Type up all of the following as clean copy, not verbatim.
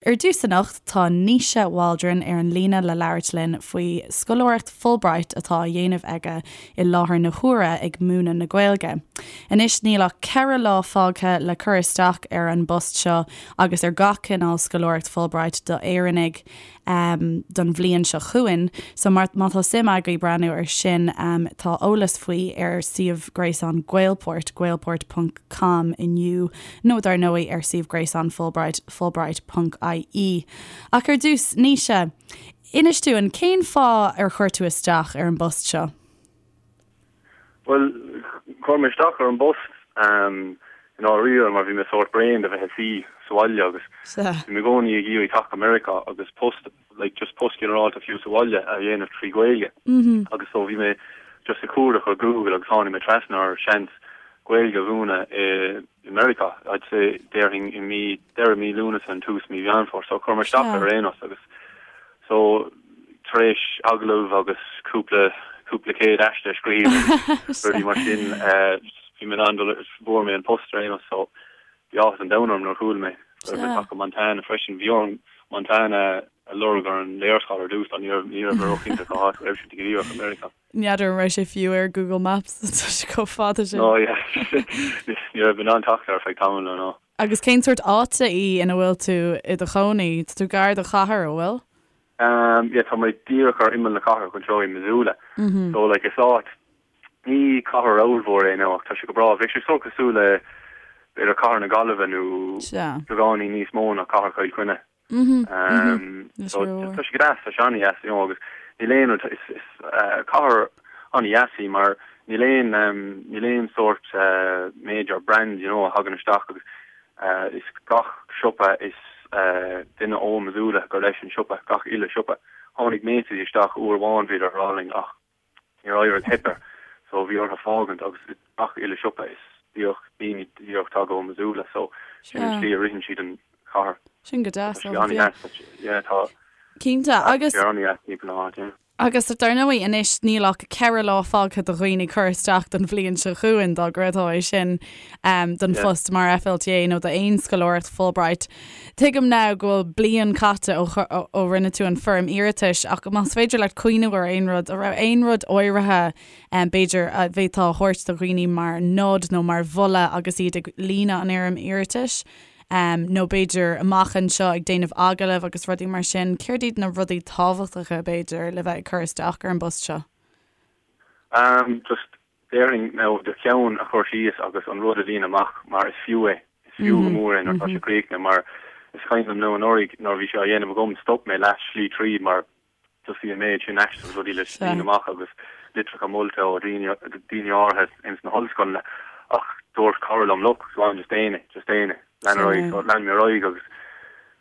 Ar dtús anocht, tá Naoise Waldron ar an líne le labhairt linn faoi scoláireacht Fulbright atá á dhéanamh aige i láthair na huaire ag múineadh na Gaeilge. Anois níl ach 4 lá fágtha le cur isteach ar an bpost seo agus ar gach cineál scoláireacht Fulbright do Éireannaigh don bhliain seo chugainn. So má tá suim agaibh breathnú ar sin tá eolas faoi ar suíomh gréasáin Gaelport, gaelport ponc com inniu nó dar ndóigh ar suíomh gréasáin Fulbright, fulbright ponc ie. Ach ar dtús, Naoise, inis dúinn, cén fáth ar chuir tú isteach ar an bpost seo? Bhuel, chuir mé isteach ar an bpost i ndáiríre mar bhí mé sórt bréan de bheith ag suí sa bhaile agus bhí mé i gcónaí ag iarraidh teacht go Meiriceá agus post, like just post ginearálta fiú sa bhaile a dhéanamh trí Ghaeilge. Agus so bhí mé just ag cuardach ar Google agus tháinig mé trasna ar seans Gaeilge a mhúineadh i Meiriceá, I'd say, déarfainn i mí, deireadh mí Lúnasa nó tús mí Mheán Fómhair. So chuir mé isteach ar aon nós agus so tar éis agallamh agus cúpla, cúpla céad aiste a scríobh agus rudaí mar sin, bhí mé in ann dul, fuair mé an post ar aon nós. So bhí áthas an domhain orm nuair a chuala mé go raibh mé ag teacht go Montana freisin. Bhí orm Montana a lorg ar an léarscáil ar dtús, ní raibh, ní raibh mé róchinnte cá háit a raibh sé go díreach i Meiriceá. N'fheadar an raibh sé fiú ar Google Maps, tá sé chomh fada sin. No, yeah. Ní raibh mé in ann teacht air ar feadh tamaill, no, no. Agus cén sórt áite í ina bhfuil tú i do chónaí? Tá tú gar do chathair, an bhfuil? Um, yeah, tá mé díreach ar imeall na cathrach anseo i Missoula. So, like, is áit, ní cathair ollmhór é no, ach tá sé go breá. Bheadh sé sórt cosúil le, b'fhéidir cathair na Gaillimhe nó beagáinín níos mó ná cathair Chill Chainnigh. So tá sé go deas, tá sé an-deas, you know, agus níl aon rud, is is cathair an-deas í mar níl aon níl aon sórt major brand, you know, a thagann isteach agus is gach siopa is duine ó Missoula gur leis an siopa, gach uile siopa. Tháinig Macy's isteach uair amháin bhíodar ar álainn ach Níor éirigh, theip air so bhí orthu fágaint agus gach uile siopa is díreach daoine díreach tagtha ó Missoula so sin an tslí a ritheann siad an chathair. Sin go deas, Tá sé an-deas, yeah tá Cinnte agus sé an-deas timpeall na háite, yeah. Agus dar ndóigh anois níl ach 4 lá fágtha do dhaoine cur isteach don bhliain seo chugainn dá gcreidfeá é sin don phost mar FLTA nó d'aon scoláireacht Fulbright. Tuigim now go bhfuil bliain caite ó rinne tú an foirm iarratais ach más féidir leat cuimhneamh ar aon rud, an raibh aon rud áirithe b'fhéidir a bhféadfá a thabhairt do dhaoine mar nod nó mar mholadh agus iad ag líonadh an fhoirm iarratais nó b'fhéidir amach anseo ag déanamh agallaimh agus rudaí mar sin, céard iad na rudaí tábhachtacha b'fhéidir le bheith ag cur isteach ar an bpost seo? Just Déarfainn now do cheann a chur síos agus an rud a líonadh amach mar is fiú é, is fiú go mór é nuair atá sé críochnaithe mar is cuimhin liom now anuraidh nuair a bhí sé á dhéanamh agam stop mé leath slí tríd mar just bhí an méid sin aiste agus rudaí le líonadh amach agus litreacha molta ó daoine daoine áirithe ins na hollscoileanna ach dúirt cara liom look go on just déan é, just déan é, lean ar aghaidh so lean mé ar aghaidh agus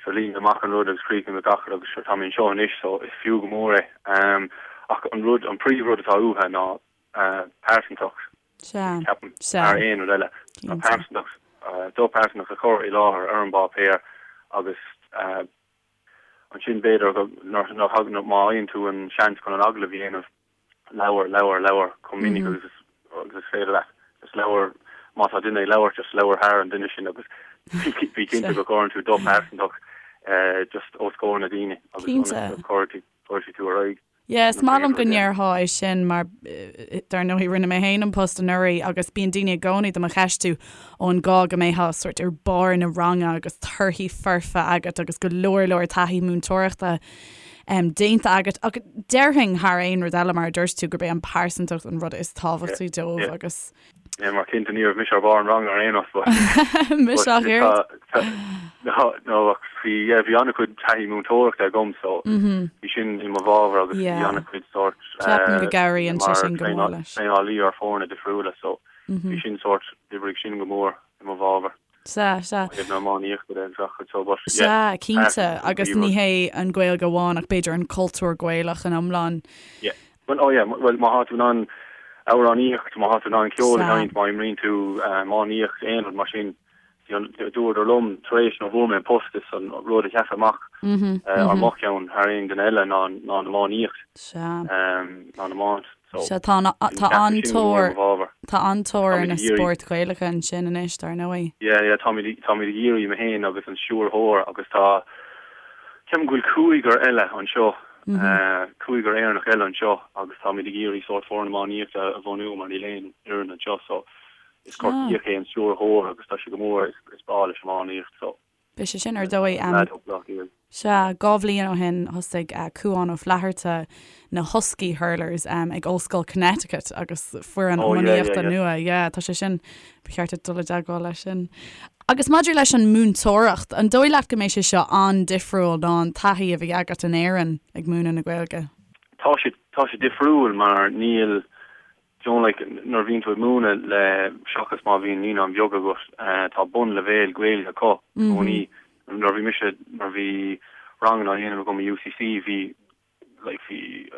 sure líon mé amach an rud agus chríochnaigh mé gach rud agus sure tá mé anseo anois so is fiú go mór é ach an rud an príomh rud atá uathu ná pearsantacht, ceapaim, thar aon rud eile. Ná pearsantacht, do pearsantacht a chur i láthair ar an bpáipéar agus ansin b'fhéidir go nuair a thagann, má fhaigheann tú an seans chun an agallamh a dhéanamh, labhair, labhair, labhair chomh minic agus is féidir leat. Just labhair, má tá duine ag labhairt, just labhair thar an duine sin agus bí cinnte go gcuireann tú do phearsantacht just os comhair na daoine agus ionas go gcuirfidh tú ar aghaidh. Yeah, is maith liom go ndéarfá é sin mar dar ndóigh rinne mé féin an post anuraidh agus bíonn daoine i gcónaí do mo cheistiú ó an gá go mbeifeá sórt ar barr na ranga agus torthaí foirfe agat agus go leor leor taithí múinteoireachta um, déanta agat ach déarfainn thar aon rud eile mar a dúirt tú gurb é an pearsantacht an rud is tábhachtaí dóibh agus Yeah, mar cinnte ní raibh mise ar bharr an ranga ar aon nós but Mise ach oiread. No, no, ach bhí, yeah, bhí an-chuid taithí múinteoireachta agam so bhí sin i mo bhfabhar agus bhí an-chuid sórt Ceapaim go gcabhraíonn sé sin go mór leis. traenálaí ar foirne difriúla so bhí sin sórt, d'oibrigh sin go mór i mo bhfabhar. Sea, sea. Ó thaobh na iománaíochta de agus gach rud so but yeah. Sea, cinnte, agus ní hé an Ghaeilge amháin ach b'fhéidir an cultúr Gaelach in iomlán. Yeah. Bhuel, oh yeah, bhuel má thá tú in ann amhránaíocht, má thá tú in ann ceol a sheinnt, má imríonn tú iománaíocht, aon rud mar sin, dúradar liom tar éis nuair a fuair mé an post is an rud a sheas amach ar mo cheann thar aon duine eile ná ná an iománaíocht, ná an iomáint. So, Sea, tá tá an-tóir tá an-tóir ar na spóirt Ghaelacha ansin anois, dar ndóigh. Yeah, yeah, táimid táimid ag iarraidh mé féin agus an stiúrthóir agus tá. Ceapaim go bhfuil cúigear eile anseo, cúigear Éireannach eile anseo agus táimid ag iarraidh sórt foireann iománaíochta a bhunú mar níl aon fhoireann anseo so is Corcaíoch é an stiúrthóir agus tá sé go mór, is breá leis iománaíocht so. Beidh sé sin ar dóigh. Sea, 2 bhliain ó shin thosaigh Cuán Ó Flatharta na Husky Hurlers ag Ollscoil Connecticut agus foireann iománaíochta nua. Yeah, tá sé sin, ba cheart duit dul i dteagmháil leis sin. Agus maidir leis an múinteoireacht, an dóigh leat go mbeidh sé seo an-difriúil ná an taithí a bhí agat in Éirinn ag múineadh na Gaeilge? Tá sé, tá sé difriúil mar níl, do you know like nuair a bhíonn tú ag múineadh le, seachas má bhíonn naíonáin bheaga agat, tá bunleibhéal Gaeilge acu i gcónaí. Nuair a bhí mise, nuair a bhí ranganna á dhéanamh agam i UCC bhí, like bhí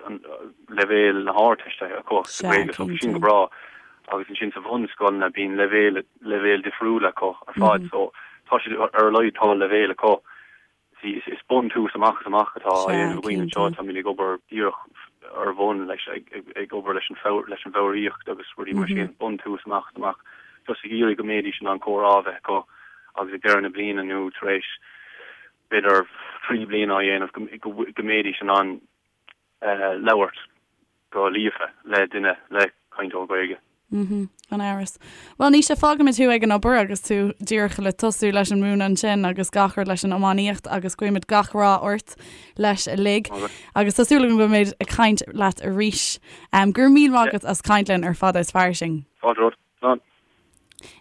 leibhéal na hArdteiste acu sa Ghaeilge so bhí sin go breá agus ansin sa bhunscoileanna bíonn leibhéal leibhéal difriúil acu ar fad so tá siad ar a laghad tá leibhéal acu. See is is buntús amach is amach atá á dhéanamh againn anseo táimid ag obair díreach ar bhun leis ag ag obair leis an leis an bhfoghraíocht agus rudaí mar sin buntús amach is amach just ag iarraidh go mbeidís in ann comhrá a bheith acu agus ag deireadh na bliana nó tar éis b'fhéidir 3 bliana á dhéanamh go mbeidís in ann labhairt go líofa le duine, le cainteoir Gaeilge. Mhm, gan amhras. Bhuel, Naoise, fágfaimid thú ag an obair agus tú díreach le tosú leis an múineadh ansin agus gach rud leis an iománaíocht agus guímid gach rath ort leis uilig. Agus tá súil agam go mbeimid ag caint leat arís. Go raibh míle maith agat as caint linn ar Fada is Fairsing. Fáilte romhat. Slán.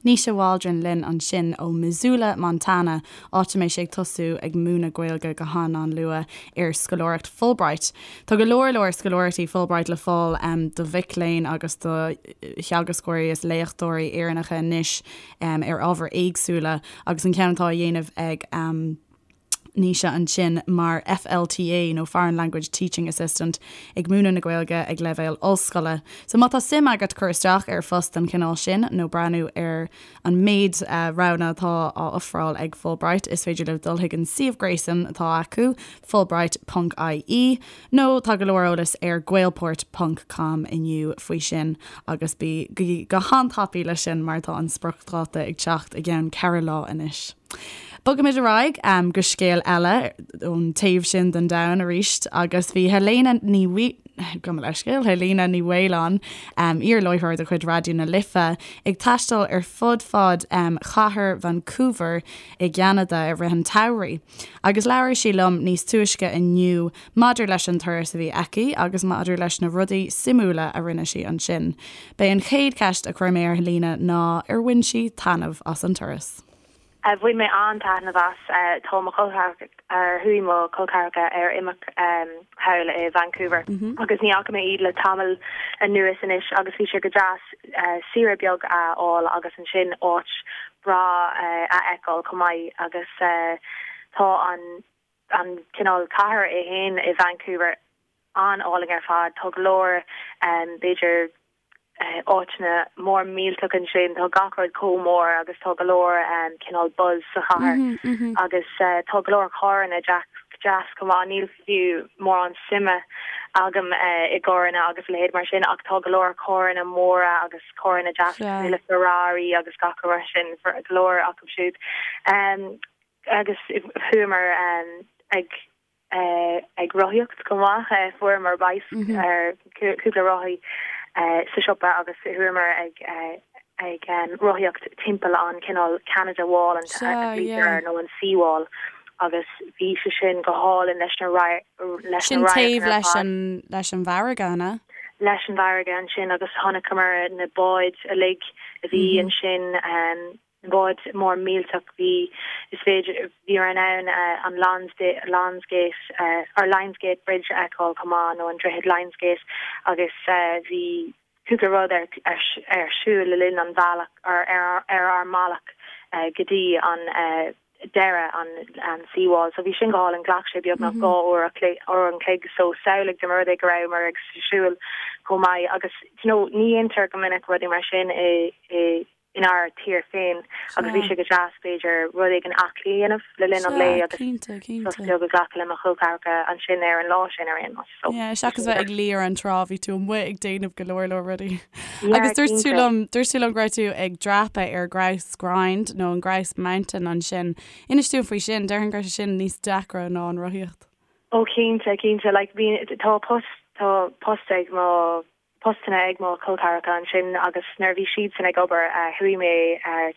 Naoise Waldron linn ansin ó Missoula, Montana, áit a mbeidh sé ag tosú ag múineadh Gaeilge go han-an-luath ar scoláireacht Fulbright. Tá go leor leor scoláireachtaí Fulbright le fáil do mhic léinn agus do theagascóirí is léachtóirí Éireannacha anois ar ábhair éagsúla agus an ceann atá á dhéanamh ag Naoise ansin mar FLTA nó Foreign Language Teaching Assistant ag múineadh na Gaeilge ag leibhéal ollscoile. So má tá suim agat cur isteach ar phost den chineál sin nó breathnú ar an méid roghanna atá á ofráil ag Fulbright is féidir libh dul chuig an suíomh gréasáin atá acu, fulbright ponc ie, nó tá go leor eolais ar gaelport ponc com inniu faoi sin agus bí go han-tapaidh leis sin mar tá an spriocdháta ag teacht i gceann 4 lá anois. Bogaimid ar aghaidh go scéal eile ón taobh sin den domhan arís agus bhí Helena Ní Gabh mo leithscéal, Helena Ní Mhaoláin, iar-láithreoir de chuid Raidió na Life, ag taisteal ar fud fad chathair Vancouver i gCeanada i rith an tsamhraidh. Agus labhair sí liom níos túisce inniu maidir leis an turas a bhí aici agus maidir leis na rudaí suimiúla a rinne sí ansin. B'é an chéad cheist a chuir mé ar Helena ná ar bhain sí taitneamh as an turas. Bhain mé an-taitneamh as. Tá mo chol ceathracha, chuaigh mo chol ceathracha ar imirce thall i Vancouver agus ní fhaca mé iad le tamall anuas anois agus bhí sé go deas saoire beag a fháil agus ansin áit breá a fheiceáil chomh maith agus tá an an cineál cathair é fhéin i Vancouver an-álainn ar fad. Tá go leor b'fhéidir áiteanna mór millteach ansin, tá gach rud chomh mór agus tá go leor cineál buzz sa chathair agus tá go leor carranna deas chomh maith. Níl fiú mórán suime agam i gcarranna agus a leithéid mar sin ach tá go leor carranna móra agus carranna deas cosúil le Ferrari agus gach rud mar sin, go leor acu siúd. Agus chuamar ag ag rothaíocht chomh maith. Fuaireamar bike cúpla rothaí sa siopa agus chuamar ag ag rothaíocht timpeall an cineál Canada Wall an glaoitear nó an Sea Wall agus bhí sé sin go hálainn leis na leis Sin na taobh radharcanna ar leis fad. an leis an bhfarraige, an ea? Leis an bhfarraige ansin agus chonaiceamar na báid uilig a bhí ansin. Báid mór millteach bhí is féidir bhíomar in ann an Lions Gate or Lions Gate Bridge a fheiceáil chomh maith nó an droichead Lions Gate agus bhí cúpla rud ar ar siúl le linn an bhealach or ar ar ár mbealach go dtí an deireadh an an sea wall so bhí sin go hálainn ghlac sé beagnach 2 uair uair an chloig so samhlaigh dá mba rud é go rabhamar ag siúl chomh maith agus you know ní dhéantar go minic rudaí mar sin i i. Inár tír féin agus bhí sé go deas b'fhéidir rud éigin aclaí a dhéanamh le linn an lae agus sos beag a ghlacadh le mo chol ceathracha ansin ar an lá sin ar aon nós. So Yeah, seachas bheith ag luí ar an trá bhí tú amuigh ag déanamh go leor leor rudaí. Agus dúirt tú liom, dúirt tú liom go raibh tú ag dreapadh ar Grouse Grind nó an Grouse Mountain ansin. Inis dúinn faoi sin, déarfainn go raibh sé sin níos deacra ná an rothaíocht. Ó cinnte, cinnte, like bhí, tá post, tá post ag mo postanna ag mo chol ceathracha ansin agus nuair a bhí siadsan ag obair chuaigh mé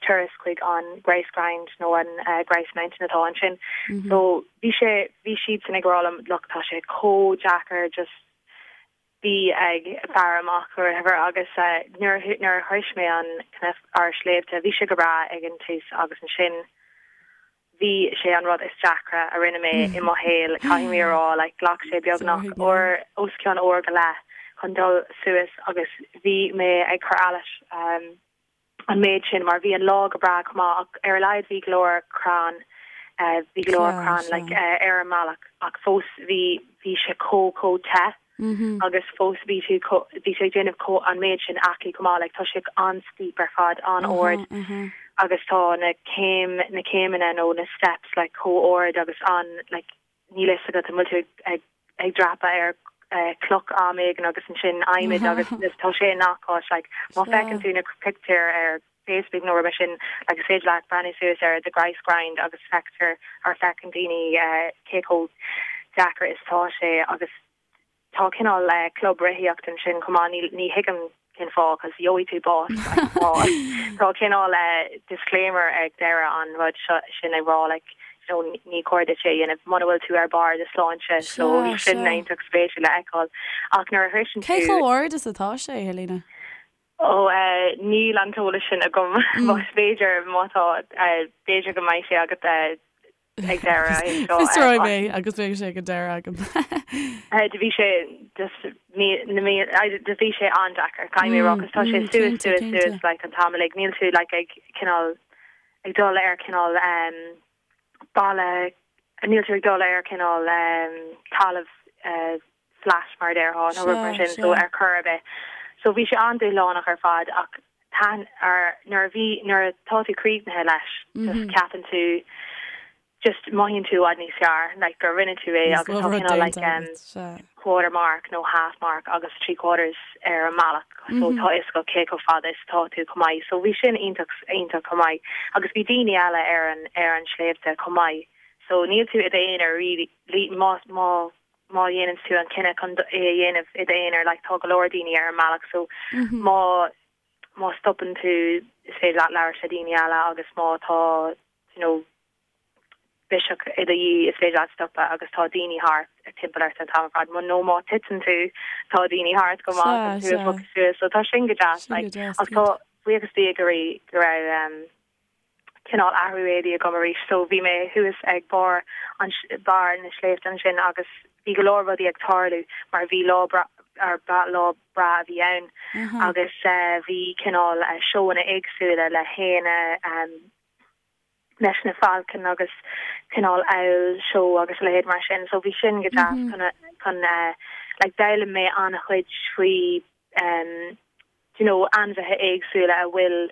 turas chuig an Grouse Grind nó an Grouse Mountain atá ansin. So bhí sé, bhí siadsan ag rá liom look tá sé chomh deacair just bí ag faire amach or whatever agus nuair nuair a shroich mé an cnoc ar sléibhte bhí sé go breá ag an tús agus ansin Bhí sé an rud is deacra a rinne mé i mo shaol, caithfidh mé a rá, like ghlac sé beagnach uair, os cionn uair go leith chun dul suas agus bhí mé ag cur allais an méid sin mar bhí an lá go breá chomh maith ach ar a laghad bhí go leor crann, bhí go leor crann like ar an mbealach ach fós bhí, bhí sé chomh, chomh te. agus fós bhí sé bhí sé ag déanamh chomh an méid sin aclaí chomh maith like tá sé an-steep ar fad an-ard agus tá na céim na céimeanna nó na steps like chomh ard agus an like níl fhios agat an bhfuil tú ag ag dreapadh ar cloch am éigin agus ansin adhmaid agus tá sé i ngach áit like má feiceann tú na pictiúir ar Facebook nó rud mar sin like is féidir leat breathnú suas ar the Grouse Grind agus feictear or feiceann daoine cé chomh deacair is atá sé agus tá cineál club rothaíocht ansin chomh maith ní ní thuigim cén fáth cos gheobhaidh tú bás like tá tá cineál disclaimer ag deireadh an rud seo sin ag rá like you know ní cóir duit é a dhéanamh muna bhfuil tú ar barr do sláinte so sin iontach spéisiúil le fheiceáil ach nuair a shroiseann tú Cé chomh ard is atá sé, Helena? Ó, níl an t-eolas sin agam. Más féidir, má tá, b'fhéidir go mbeidh sé agat ag deireadh é seo. Fiosróidh mé agus beidh sé ag an deireadh agam. Do bhí sé just mí, na mí, do bhí sé an-deacair, caithfidh mé a rá, 'cause tá sé suas, suas, suas like an t-am uilig. Níl tú like ag cineál, ag dul ar cineál balla, níl tú ag dul ar cineál talamh flat mar a déarfá nó rud mar sin so ar chor ar bith. So bhí sé an-dúshlánach ar fad ach taitn ar nuair a bhí nuair atá tú críochnaithe leis just ceapann tú just mothaíonn tú i bhfad níos fearr like gur rinne tú é agus tá cineál like um, quarter mark nó half mark agus 3 quarters ar an mbealach so tá fhios agat cé chomh fada is atá tú chomh maith so bhí sin iontach iontach chomh maith agus bhí daoine eile ar an ar an sléibhte chomh maith so níl tú i d'aonar really má má má dhéanann tú an cinneadh chun é a dhéanamh i d'aonar like tá go leor daoine ar an mbealach so má má stopann tú is féidir leat labhairt le daoine eile agus má tá you know biseach i do dhiaidh is féidir leat stopadh agus tá daoine thart timpeall ort an t-am ar fad nó má titeann tú tá daoine thart go maith chun tú a phiocadh suas so tá sin go deas like ach tá buíochas Dé go raibh go raibh um, cineál athrú éadaí agam arís so bhí mé thuas ag barr an barr na sléibhte ansin agus bhí go leor rudaí ag tarlú mar bhí lá breá ar lá breá a bhí ann agus bhí cineál seóanna éagsúla le héin leis na falcon agus cineál owl show agus a leithéid mar sin so bhí sin go deas chun chun like d'fhoghlaim mé an-chuid faoi you know, ainmhithe éagsúla a bhfuil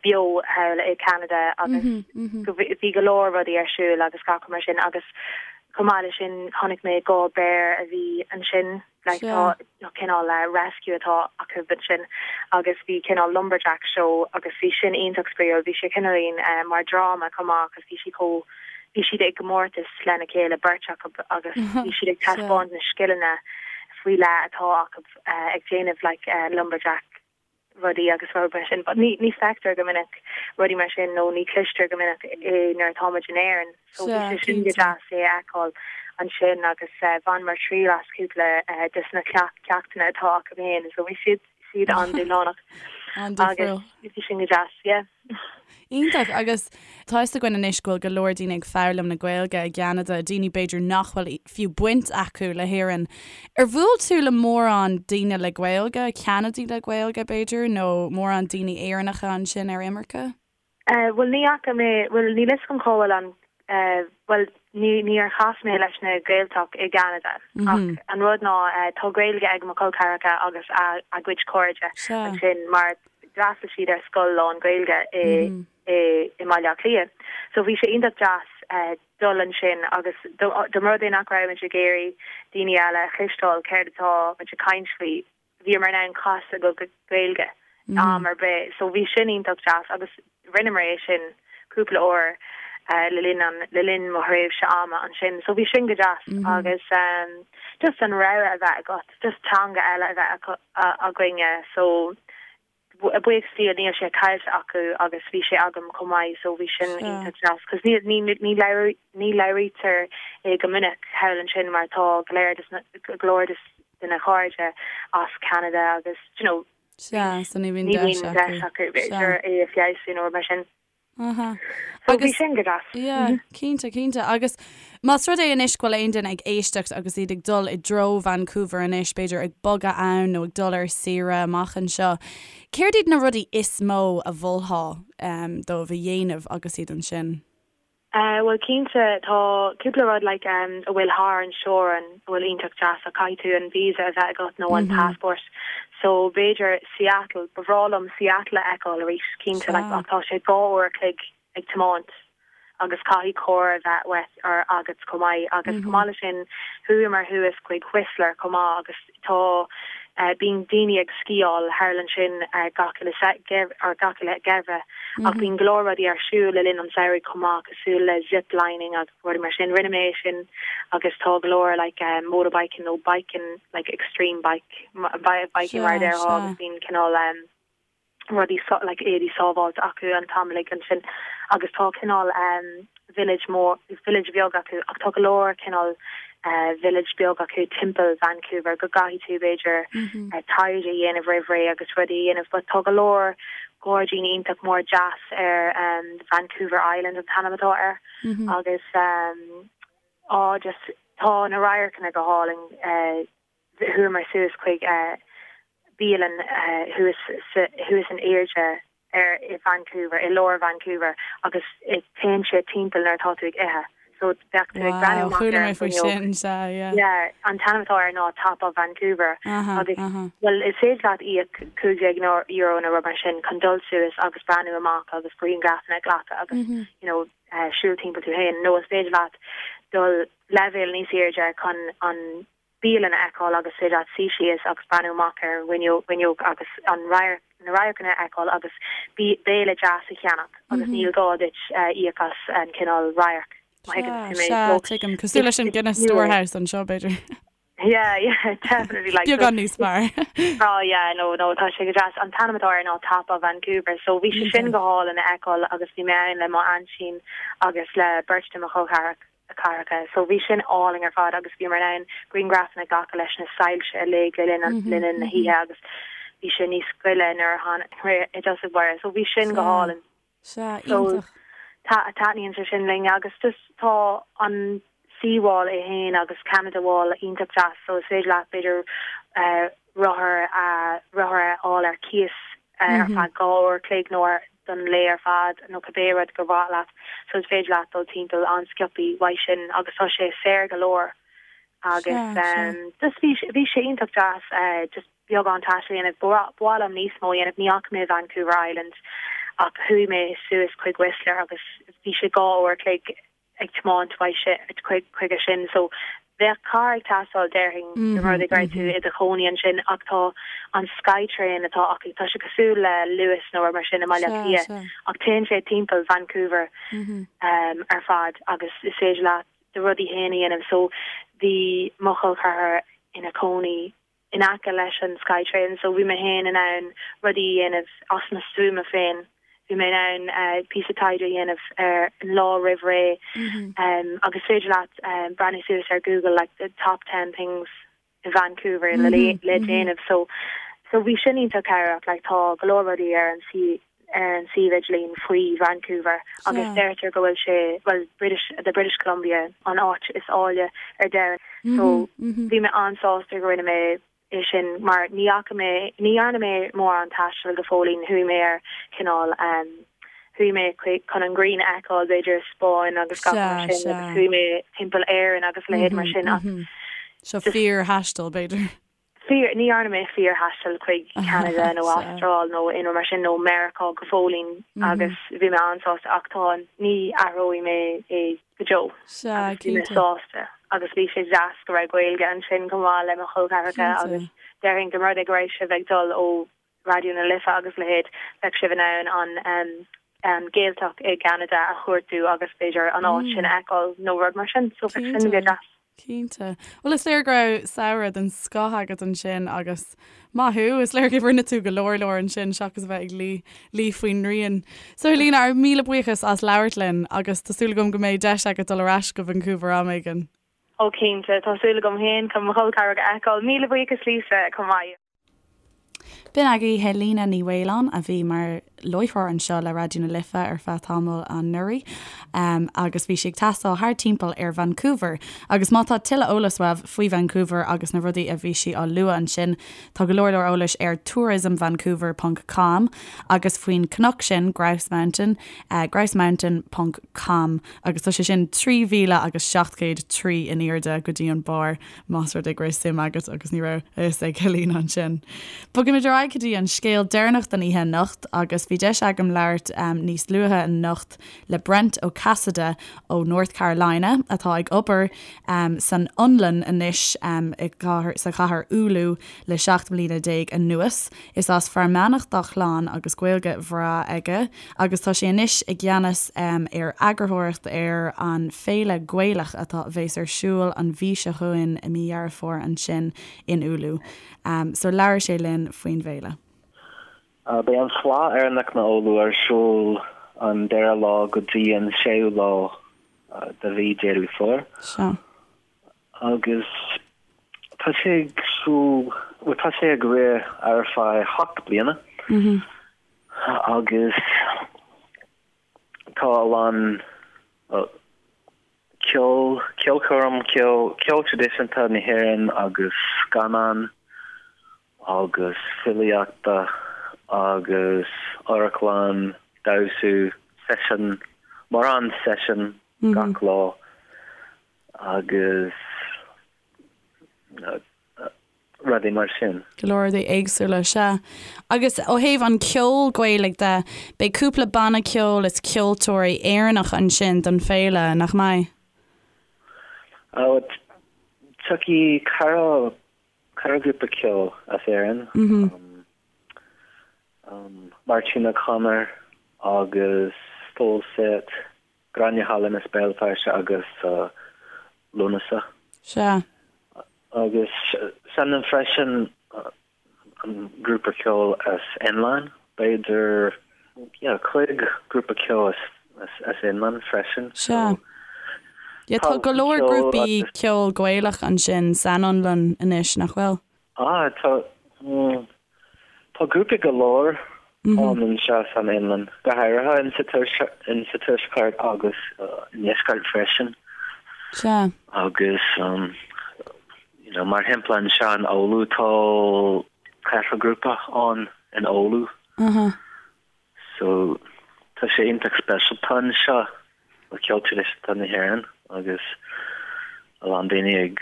beo thall i Canada agus go bhí go leor rudaí ar siúl agus gach rud mar sin agus chomh maith leis sin chonaic mé 2 béar a bhí ansin like tá cineál rescue atá acu ansin agus bhí cineál lumberjack show agus bhí sin iontach spraíúil bhí sé cineáilín mar dráma chomh maith agus bhí sí chomh bhí siad ag gcomórtas lena chéile beirt acu agus bhí siad ag taispeáint na scileanna faoi leith atá acu ag déanamh like lumberjack rudaí agus rud mar sin but ní ní feictear go minic rudaí mar sin nó ní cloistear go minic é nuair atá muid in Éirinn so bhí sé sin go deas é a fheiceáil ansin agus bhaineamar triail as cúpla des na ceachtanna atá acu féin so bhí siad siad an-dúshlánach agus bhí sin go deas yeah. Iontach, agus tá fhios againn anois go bhfuil go leor daoine ag foghlaim na Gaeilge i gCeanada, daoine b'fhéidir nach bhfuil fiú baint acu le hÉirinn. Ar bhuail tú le mórán daoine le Gaeilge, Ceanadaigh le Gaeilge b'fhéidir, nó mórán daoine Éireannacha ansin ar imirce? Bhuel ní fhaca mé, bhuel níl fhios agam cá bhfuil an, bhuel ní níor chas mé leis na Gaeltacht i gCeanada ach an rud ná tá Gaeilge ag mo chol ceathracha agus a a gcuid cairde ansin mar. d'fhreastail siad ar scoil lán-Ghaeilge i i i mBaile Átha Cliath. So bhí sé iontach deas dul ansin agus dá mba rud é nach raibh muid ag iarraidh daoine eile a chloisteáil céard atá muid ag caint faoi, bhíomar in ann casadh go Gaeilge am ar bith. So bhí sin iontach deas agus rinneamar é sin cúpla uair le linn an, le linn mo thréimhse ama ansin. So bhí sin go deas agus just an rogha a bheith agat, just teanga eile a bheith againne. So buíochas Dia níl sé caillte acu agus bhí sé agam chomh maith so bhí sin iontach deas cos ní ní ní ní labhraítear é go minic thall ansin mar tá go leor des na go leor des de na cairde as Ceanada agus you know Sea, so ní bhíonn deis acu. deis acu b'fhéidir é a feabhsú nó rud mar sin. Aha. So bhí sin go deas. Yeah, cinnte, cinnte. Agus más rud é anois go bhfuil aon duine ag éisteacht agus iad ag dul i dtreo Vancouver anois, b'fhéidir ag bogadh ann nó ag dul ar saoire amach anseo, céard iad na rudaí is mó a mholfá dóibh a dhéanamh agus iad ansin? Bhuel cinnte tá cúpla rud like a bhfuil thar an teorainn a bhfuil iontach deas ach caithfidh tú an visa a bheith agat nó an passport so b'fhéidir Seattle, ba bhreá liom Seattle a fheiceáil arís cinnte like ach tá sé 2 uair a chloig ag tiomáint agus caithfidh carr a bheith uait or agat chomh maith agus chomh maith le sin chuamar thuas chuig Whistler chomh maith agus tá bíonn daoine ag sciáil thall ansin gach uile or gach uile gheimhreadh ach bíonn go leor rudaí ar siúl le linn an samhraidh chomh maith cosúil le zip lining agus rudaí mar sin. Rinne mé é sin agus tá go leor like motorbiking nó biking like extreme bike biking mar a déarfá agus bíonn cineál rudaí like éadaí sábháilte acu an t-am uilig ansin agus tá cineál village mór, village bheag acu ach tá go leor cineál village beag acu timpeall Vancouver go gcaithfidh tú b'fhéidir taighde a dhéanamh roimh ré agus rudaí a dhéanamh but tá go leor gairdíní iontach mór deas ar Vancouver Island an t-ainm atá air agus á just tá na radharcanna go hálainn. Chuamar suas chuig bialann thuas thuas in airde ar i Vancouver, i lár Vancouver agus téann sé timpeall nuair atá tú ag ithe. So bheadh tú ag breathnú amach ar an bhfuinneog. Yeah, an t-ainm atá air ná Top of Vancouver agus bhuel is féidir leat íoc €15 nó rud mar sin chun dul suas agus breathnú amach agus grianghrafanna a ghlacadh agus you know siúl timpeall tú féin nó is féidir leat dul leibhéal níos airde chun an bialann a fheiceáil agus féidir leat suí síos agus breathnú amach ar an bhfuinneog agus an radharc, na radharcanna a fheiceáil agus béile deas a cheannach agus níl gá duit íoc as an cineál radharc, má thuigeann tú mé. Sea, tuigim. Cosúil leis an Guinness Storehouse anseo, b'fhéidir. Yeah, yeah, definitely. Like, Beagán níos fearr. Oh yeah, no, no, tá sé go deas. An t-ainm atá air ná Top of Vancouver, so bhí sé sin go hálainn a fheiceáil agus bhí mé ann le mo aintín agus le beirt de mo chol ceathracha. So bhí sin álainn ar fad agus bhíomar in ann grianghrafanna a ghlacadh leis na soilse uilig le linn le linn na hoíche agus bhí sé níos gile nuair a tháinig i dtosach báire. So bhí sin go hálainn. Sea, iontach. So taitníonn sé sin linn agus just tá an Seawall é fhéin agus Canada Wall iontach deas so is féidir leat b'fhéidir rothar a rothar a fháil ar cíos ar feadh 2 uair a chloig nó ar don lae ar fad nó cibé rud gur mhaith leat so is féidir leat dul timpeall an-sciobthaí uaidh sin agus tá sé saor go leor agus just bhí bhí sé iontach deas just beagán taistil a dhéanamh. Ba mhaith liom níos mó a dhéanamh. Ní fhaca mé Vancouver Island ach chuaigh mé suas chuig Whistler agus bhí sé 2 uair a chloig ag tiomáint chuige sin so bheadh carr ag teastáil déarfainn dá mba rud é go raibh tú i do chónaí ansin ach tá an Skytrain atá acu, tá sé cosúil le Luas nó rud mar sin i mBaile Átha Cliath ach téann sé timpeall Vancouver ar fad agus is féidir leat do rudaí féin a dhéanamh so bhí mo chol ceathar ina cónaí in aice leis an Skytrain so bhí mé féin in ann rudaí a dhéanamh as mo stuama féin. Bhí mé in ann píosa taighde a dhéanamh ar an lá roimh ré agus is féidir leat breathnú suas ar Google like the top ten things in Vancouver le le déanamh so so bhí sin iontach cabhrach like tá go leor rudaí ar an ar an suíomh idirlín faoi Vancouver agus deirtear go bhfuil sé, bhuel, British, the British Columbia an áit is áille ar domhan. So bhí mé an-sásta go rinne mé é sin mar ní fhaca mé, ní dhearna mé mórán taistil go fóillín, chuaigh mé ar cineál, chuaigh mé chun an ghrian a fheiceáil b'fhéidir i Spáinn agus gach mar sin agus chuaigh mé timpeall Éirinn agus leithéid mar sin ach Seo fíor-thaisteal b'fhéidir. Fíor, ní dhearna mé fíor-thaisteal chuig Ceanada nó Astráil nó aon rud mar sin nó Meiriceá go fóillín agus bhí mé an-sásta ach tá, ní athróidh mé é go deo agus bhí mé sásta agus bhí sé deas go raibh Gaeilge ansin chomh maith le mo chol ceathracha agus déarfainn go mba rud é go raibh sibh ag dul ó Raidió na Life agus a leithéid, bheadh sibh in ann an an Ghaeltacht i gCeanada a chuartú agus b'fhéidir an áit sin a fheiceáil nó rud mar sin. So bheadh sin go deas. Cinnte. Bhuel is léir go raibh samhradh den scoth agat ansin agus maith thú, is léir go rinne tú go leor leor ansin seachas a bheith ag luí luí faoin ngrian. So Helena, ár míle buíochas as labhairt linn agus tá súil agam go mbeidh deis agat dul ar ais go Vancouver am éigin. Ó cinnte, tá súil agam féin chun mo chol ceathracha a fheiceáil. Míle buíochas Lisa chomh maith. B'in agaibh Helena Ní Mhaoláin a bhí mar láithreoir anseo le Raidió na Life ar feadh tamaill anuraidh agus bhí sí ag taisteal thar timpeall ar Vancouver. Agus má tá tuilleadh eolais uaibh faoi Vancouver agus na rudaí a bhí sí á lua ansin, tá go leor leor eolais ar tourismvancouver ponc com agus faoin cnoc sin, Grouse Mountain, grousemountain ponc com agus tá sé sin 3,000 agus 703 in airde go dtí an barr. Más rud é go raibh suim agat agus ní raibh a fhios ag Helena ansin. Bogaimid ar aghaidh go dtí an scéal deireanach don oíche anocht agus bhí deis agam labhairt níos luaithe anocht le Brent Ó Casaide ó North Carolina atá ag obair san Fhionlainn anois sa chathair Oulu le 17 mbliana anuas. Is as Fear Manach dá chlann agus Gaeilge bhreá aige agus tá sé anois i gceannas ar eagarthóireacht ar an Féile Gaelach atá a bheas ar siúl an mhí seo chugainn i mí Dheireadh Fómhair ansin in Oulu. So labhair sé linn faoin bhféile. Beidh an Fleadh Éireannach na Oulu ar siúl an dara lá go dtí an séú lá de mhí Deireadh Fómhair. Sea. Agus tá sé ag siúl, bhuel tá sé ag rith ar feadh 7 bliana agus tá a lán ceol, ceolchoirm, ceol, ceol traidisiúnta na hÉireann agus scannán agus filíochta agus amharclann, damhsa, seisiún, mórán seisiún gach lá agus rudaí mar sin. Go leor rudaí éagsúla, sea. Agus ó thaobh an ceol Gaelaigh de, beidh cúpla banna ceoil is ceoltóirí Éireannach ansin don féile, nach mbeidh? Tiocfaidh ceithre Ceithre ghrúpa ceoil as Éirinn, Máirtín O'Connor agus Full Set, Gráinne Holland as Béal Feirste agus Lúnasa. Sea. Agus seinneann freisin an grúpa ceoil as Fhionlainn, b'fhéidir, yeah, 5 grúpa ceoil as as Fhionlainn freisin. Sea. Yeah, tá go leor grúpaí ceoil Gaelach ansin san Fhionlainn anois, nach bhfuil? Ah, tá, tá grúpaí go leor ann anseo san Fhionlainn, go háirithe in sa tuaisceart agus i ndeisceart freisin. Sea. Agus, you know, mar shampla anseo in Oulu tá ceithre grúpa ann in Oulu. So, tá sé iontach speisialta anseo le ceol traidisiúnta na hÉireann agus a lán daoine ag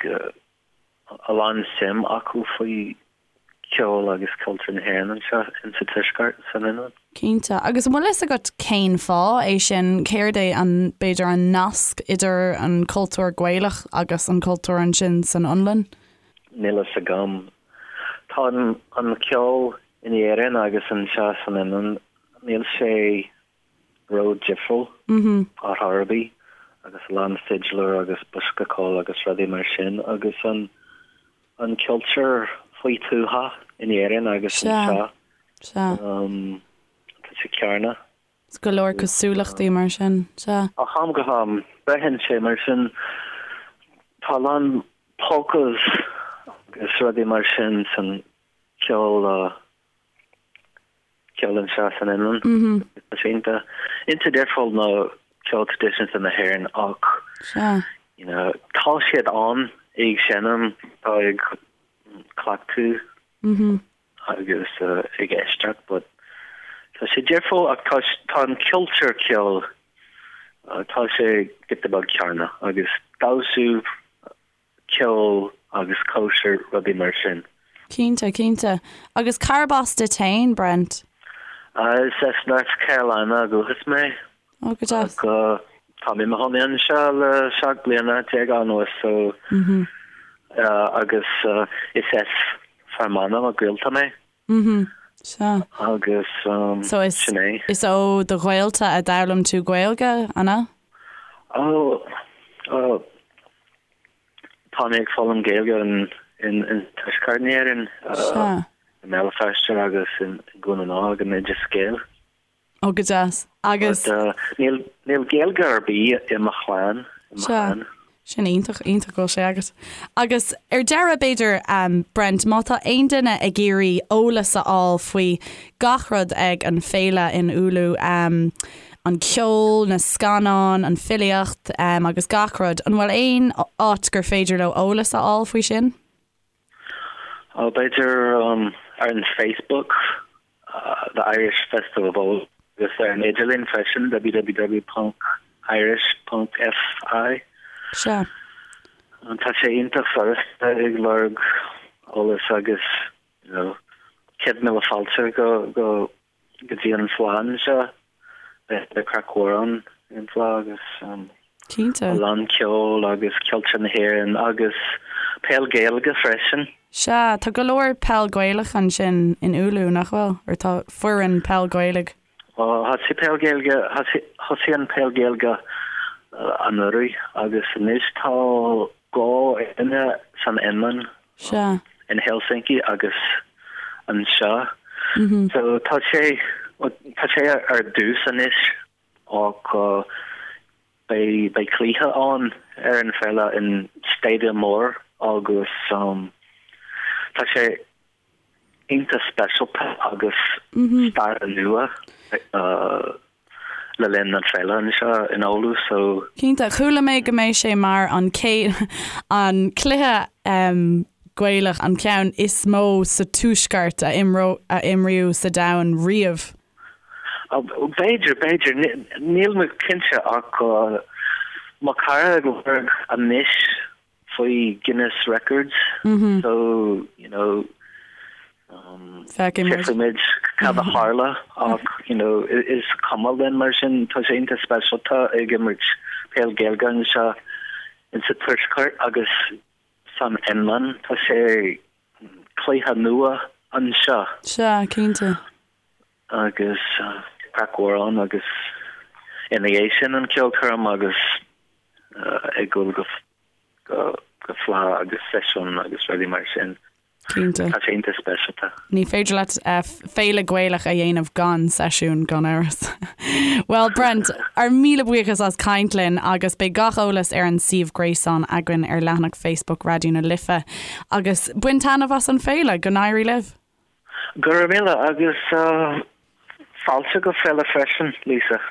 a lán suim acu faoi ceol agus cultúr na hÉireann anseo in sa tuaisceart san Fhionlainn. Cinnte. Agus an bhfuil fhios agat cén fáth é sin? Céard é an, b'fhéidir, an nasc idir an cultúr Gaelach agus an cultúr ansin san Fhionlainn? Níl fhios agam. Tá an ceol in Éirinn agus anseo san Fhionlainn, níl sé ró-difriúil ar chor ar bith agus a lán fidléir agus bosca ceoil agus rudaí mar sin agus an an cultúr faoi tuath in Éirinn agus anseo tá sé céanna. Is go leor cosúlachtaí mar sin, sea. Ó am go ham, braitheann sé mar sin. Tá a lán polkas agus rudaí mar sin san ceol, ceol anseo san Fhionlainn. Tá sé iontach, iontach difriúil ná ceol traidisiúnta na hÉireann ach, you know, tá siad ann ag seinm, tá ag cleachtadh. agus ag éisteacht but tá sé difriúil ach tá tá an cultúr ceoil tá sé giota beag céanna agus damhsa ceol agus cóisir rudaí mar sin. Cinnte, cinnte. Agus cárb as duit féin, Brent? Is as North Carolina ó dhúchas mé. Ó, go deas. Ach tá mé i mo chónaí anseo le 17 bliana anuas so agus is as Fear Manach mo ghaolta mé. Sea. Agus So is sin é. is ó do ghaolta a d'fhoghlaim tú Gaeilge, an ea? Ó, tá mé ag foghlaim Gaeilge in in Tuaisceart na hÉireann, Sea. i mBéal Feirste agus i nDún na nGall ag an Oideas Gael. Ó, go deas. Agus. But níl, níl Gaeilge ar bith i mo chlann, i mo Sea. chlann. Sin iontach, iontach go bhfuil sé agat. Agus ar deireadh, b'fhéidir, Brent, má tá aon duine ag iarraidh eolas a fháil faoi gach rud ag an féile in Oulu, an ceol, na scannáin, an filíocht, agus gach rud, an bhfuil aon áit gur féidir leo eolas a fháil faoi sin? Ó, b'fhéidir ar an Facebook, The Irish Festival of Oulu, agus ar an idirlíon freisin, www ponc irish ponc fi. Sea. Tá sé iontach furasta ag lorg eolas agus, you know, 100,000 fáilte go, go, go dtí an fleadh anseo. Beidh craic mhór ann ar an bhfleadh agus Cinnte. a lán ceol agus cultúr na hÉireann agus peil Gaeilge freisin. Sea, tá go leor peil Gaelach ansin in Oulu, nach bhfuil? Or tá foireann peil Gaeilge. Ó, thosaigh peil Gaeilge, thosaigh an peil Gaeilge anuraidh agus anois tá dhá fhoireann san Fhionlainn. Sea. In Helsinki agus anseo. So tá sé, tá sé ar dtús anois ach beidh, beidh cluiche ann ar an féile in stadium mór agus tá sé iontach speisialta agus stair nua le linn an féile anseo in Oulu so. Cinnte, chuala mé go mbeidh sé mar an chéad, an cluiche Gaelach, an ceann is mó sa tuaisceart a a imríodh sa domhan riamh. B'fhéidir, b'fhéidir, níl mé cinnte ach mo chara ag lorg anois faoi Guinness Records so you know Feicfidh muid cad a tharla ach you know is cuma linn mar sin tá sé iontach speisialta ag imirt peil Gaeilge anseo insa Tuaisceart agus san Fhionlainn tá sé cluiche nua anseo. Sea, cinnte. Agus craic mhór ann agus ina dhiaidh sin an ceolchoirm agus ag dul go go fleadh agus seisiún agus rudaí mar sin. Cinnte. Tá sé iontach speisialta. Ní féidir leat féile Gaelach a dhéanamh gan seisiún, gan amhras. Bhuel Brent, ár míle buíochas as caint linn agus beidh gach eolas ar an suíomh gréasáin againn ar leathanach Facebook Raidió na Life. Agus bain taitneamh as an féile, go n-éirí libh! Go raibh míle agus fáilte go féile freisin, Lisa.